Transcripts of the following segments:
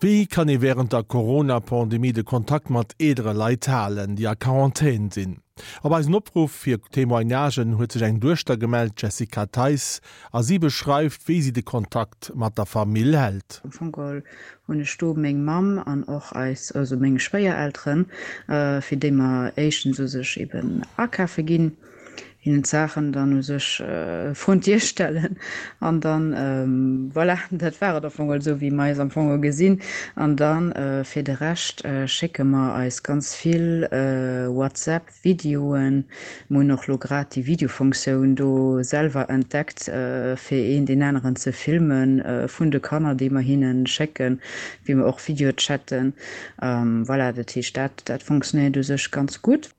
Wéi kann ee wärend der Corona-Pandemie de Kontakt mat eelere Leit halen, déi a Quarantän sinn? Op eisen Opruff fir Témoignagen huet sech eng Duechter gemellt, d'Jessica Theis, a si beschreift, wéi si de Kontakt mat der Famill hält. Am Fong geholl hunn ech do meng Mamm an och eis, also meng Schwéierelteren, fir déi mer éischtens u sech eben akafe ginn. hinnen d'Saachen dann u sech vrun d'Dier stellen an dann, voilà, dat war et am Fong esou wéi mer eis am Fong gesinn. An dann fir de Rescht schécke mer eis ganz vill WhatsApp Videoen. Mer hunn och lo grad déi Videofunktioun do selwer entdeckt fir een deen aneren ze filmen vun de Kanner déi mer hinnen schécken, wéi mer och Videochatten. Voilà, dat heescht dat dat funktionéiert u sech ganz gutt.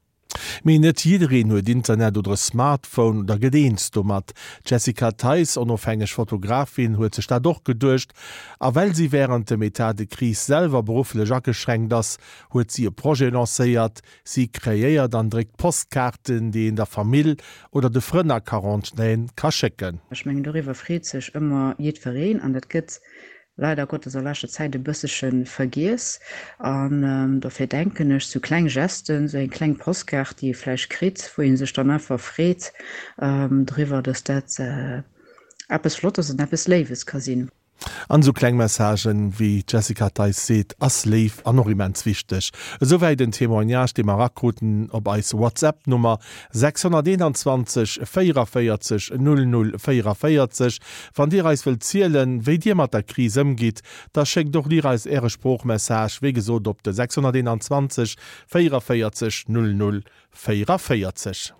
Mee net jiddereen huet Internet oder e Smartphone oder gëtt eens domat. D'Jessica Theis, onofhängeg Fotografin, huet sech dat och geduecht. A well si wärend dem Etat de crise selwer berufflech ageschränkt ass, huet si e Projet lancéiert. Si kreéiert an dréckt Postkaarten, déi een der Famill oder de Frënn a Quarantän ka schécken. Ech mengen, doriwwer freet sech ëmmer jiddwereen an dat gëtt leider Gottes a leschter Zäit e bëssche vergiess an dofir denken ech, sou kleng Gesten, sou eng kleng Postkaart, déi ee vläicht kritt, wou ee sech dann einfach freet driwwer, dass dat eppes Flottes an eppes Léiwes ka sinn. An esou kleng Messagen, wéi d'Jessica Theis seet, ass léif an och immens wichteg. Esouwäit en Témoignage, dee mer erakruten op eis WhatsApp-Nummer 621 44 00 44. Wann Dir eis wëllt zielen, wéi Dir mat der Kris ëmgitt, da schéckt och Dir eis Äre Sproochmessage, wéi gesot op de 621 44 00 44.